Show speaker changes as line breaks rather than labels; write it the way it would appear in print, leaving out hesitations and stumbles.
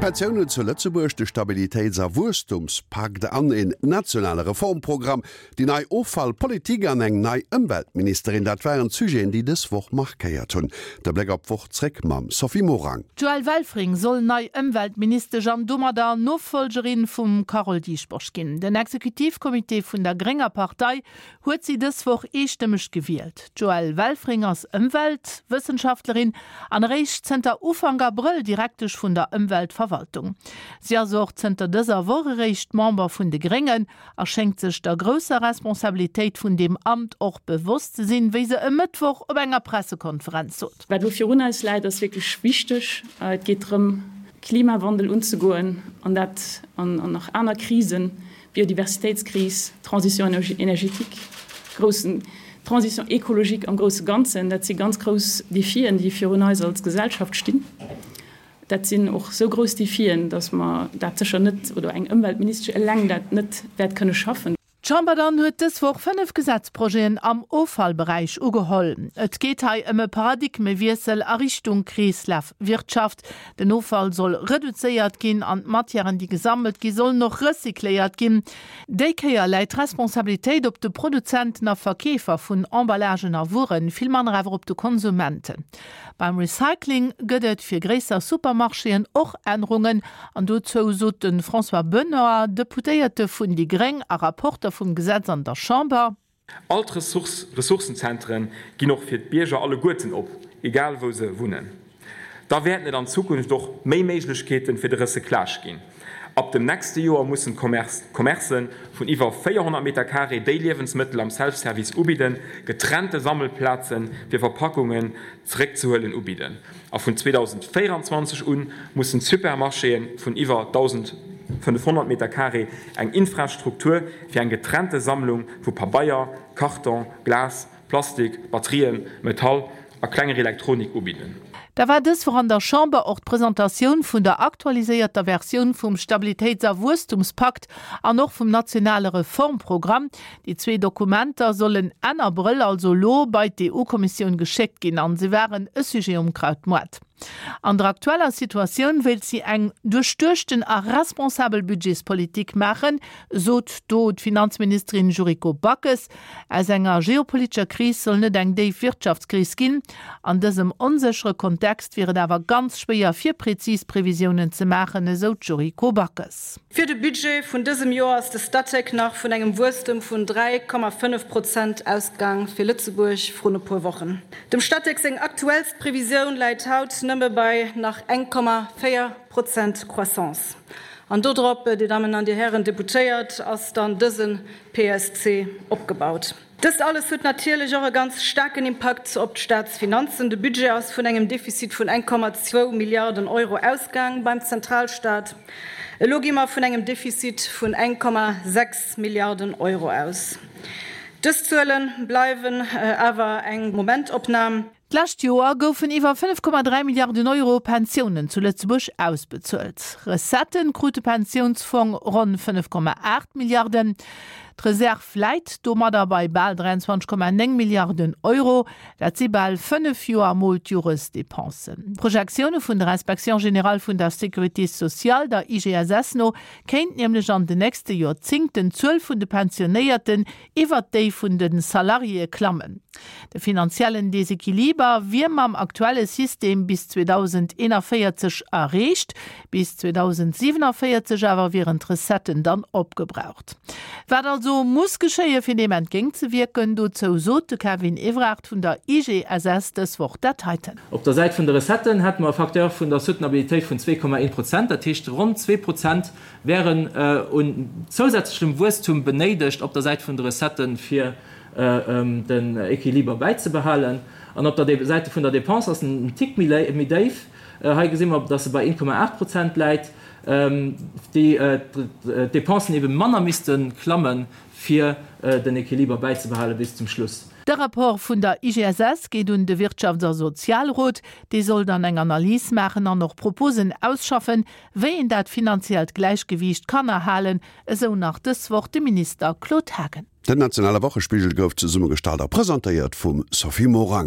D'Pensiounen zu Lëtzebuerg, de Stabilitéits a Wuesstumspakt an een nationale Reformprogramm, déi nei Offallpolitik an eng nei Ëmweltministerin, dat waren d'Sujeten, déi dës Woch markéiert hunn. De Bléck op d'Woch zréck mam Sophie Morang.
D'Joëlle Welfring soll nei Ëmweltministesch an domadder Nofollgerin vum Carole Dieschbourg ginn. Den Exekutivcomité vun der grénger Partei huet si dës Woch eestëmmeg gewielt. D'Joëlle Welfring ass Ëmweltwëssenschaftlerin an eréischt zënter Ufank Abrëll Direktesch vun der Ëmweltverwaltung. Si ass och zënter dëser Woch eréischt Member vun de Gréngen a schéngt sech der grousser Responsabilitéit vun deem Amt och bewosst ze sinn, wéi se e Mëttwoch op enger Pressekonferenz sot.
Wat elo virun eis läit, ass wierklech wichteg. Et geet drëm, Klimawandel unzegoen an dat an nach aner Krisen, Biodiversitéitskris, Transition énergétique, groussen Transition écologique am grousse Ganzen, dat si ganz grouss Défien, déi virun eis als Gesellschaft stinn. Dat sinn och esou grouss Défien, datt mer dat sécher net, oder eng Ëmweltministesch eleng dat net wäert kënne schaffen.
D'Chamber dann huet dës Woch 5 Gesetzprojeten am Offallberäich ugeholl. Et geet hei ëm e Paradigmewiessel a Richtung Kreeslafwirtschaft. Den Offall soll reduzéiert ginn an d'Matièren, déi gesammelt gi sollen och recycléiert ginn. Déi Kéier läit d'Responsabilitéit op de Produzenten a Verkeefer vun Emballagen a Wueren, vill manner awer op de Konsumenten. Beim Recycling gëtt et fir gréisser Supermarchéen och Ännerungen an dozou sot de François Benoy, Deputéierte vun déi Gréng a Rapporter vum Gesetz an der Chamber.
All d'Ressourcenzentere ginn och fir d'Bierger alleguerten op, egal wou se wunnen. Da wäerten et an Zukunft och méi Méiglechkeete fir de Recyclage ginn. Ab dem nächste Joer mussen d'Commercë vun iwwer 400 Meter carré, déi Liewensmëttel am Self-Service ubidden, getrennte Sammelplaze fir Verpackungen zeréckzehuelen ubidden. A vun 2024 u mussen d'Supermarchéë vun iwwer 1.500 Meter carré eng Infrastruktur fir eng getrennte Sammlung vu Pabeier, Karton, Glas, Plastik, Batterien, Metall a klenger Elektronik ubidden.
Da war dës Woch an der Chamber och d'Presentatioun vun der aktualiséierter Versioun vum Stabilitéits a Wuesstumspakt an och vum nationale Reformprogramm. Déi zwee Dokumenter sollen Enn Abrëll, also elo, bei d'EU-Kommissioun geschéckt ginn an se waren e Sujet um Krautmoart. An der aktueller Situatioun wéilt si eng duerchduechten a responsabel Budgetspolitik maachen, sot do d'Finanzministerin Yuriko Backes. Aus enger geopolitescher Kris soll net eng déif Wirtschaftskris ginn. An dësem onséchere Kontext wier et awer ganz schwéier fir prezis Previsiounen ze maachen, esou d'Yuriko Backes.
Fir de Budget vun dësem Joer ass de Statec nach vun engem Wuesstem vun 3,5 Prozent ausgaang fir Lëtzebuerg vrun e puer Wochen. Dem Statec seng aktuellst Previsioun läit haut nëmme bei nach 1,4 Prozent Croissance. An dodrop, Dir Dammen an Dir Hären Deputéiert, ass dann dëse PSC opgebaut. Dëst alles huet natierlech och e ganz staarken Impakt op d'Staatsfinanzen. De Budget ass vun engem Defizit vun 1,2 Milliarden Euro ausgaang beim Zentralstaat. Elo gi mer vun engem Defizit vun 1,6 Milliarden Euro aus. Dës Zuele bleiwen awer eng Momentopnam.
D'lescht Joer goufen iwwer 5,3 Milliarden Euro Pensiounen zu Lëtzebuerg ausbezuelt. Recettë krut de Pensiounsfong ronn 5,8 Milliarden. D'Reserv läit domadder bei bal 23,9 Milliarden Euro. Dat si bal 5 Joer mol d'Joresdepensen. D'Projektioune vun der Inspection générale vun der Sécurité sociale, der IGSS no, kéint nämlech an den nächste Joerzéngten d'Zuel vun de Pensionéierten iwwert déi vun de Salariéë klammen. De finanziellen Desequiliber wier mam aktuelle System bis 2041 erreecht, bis 2047 awer wieren d'Recetten dann opgebraucht. Wat also muss geschéie fir deem entgéintzewierken, dozou sot de Kevin Evrard vun der IGSS dës Woch dat heiten.
Op der Säit vun de Recetten hätte mer e Facteur vun der Soutenabilitéit vun 2,1 Prozent, dat heescht ronn 2 Prozent wären un zousätzlechem Wuesstum benéidegt op der Säit vun de Recetten, fir den Equiliber bäizebehalen. An op der Säite vun der Dépense ass en en Tick méi déif. Hei gesi mer, dass e bei 1,8 Prozent läit, déi d'Dépensen ebe manner misste klammen, fir den Equiliber bäizebehale bis zum Schluss.
De Rapport vun der IGSS geet un de Wirtschafts a Sozialrot. Dee soll dann eng Analys maachen an och Proposen ausschaffen, wéi een dat finanziellt Gläichgewiicht kann erhalen, esou nach dës Woch de Minister Claude Haagen.
Den nationale Wochespigel gouf zesummegestallt a presentéiert vum Sophie Morang.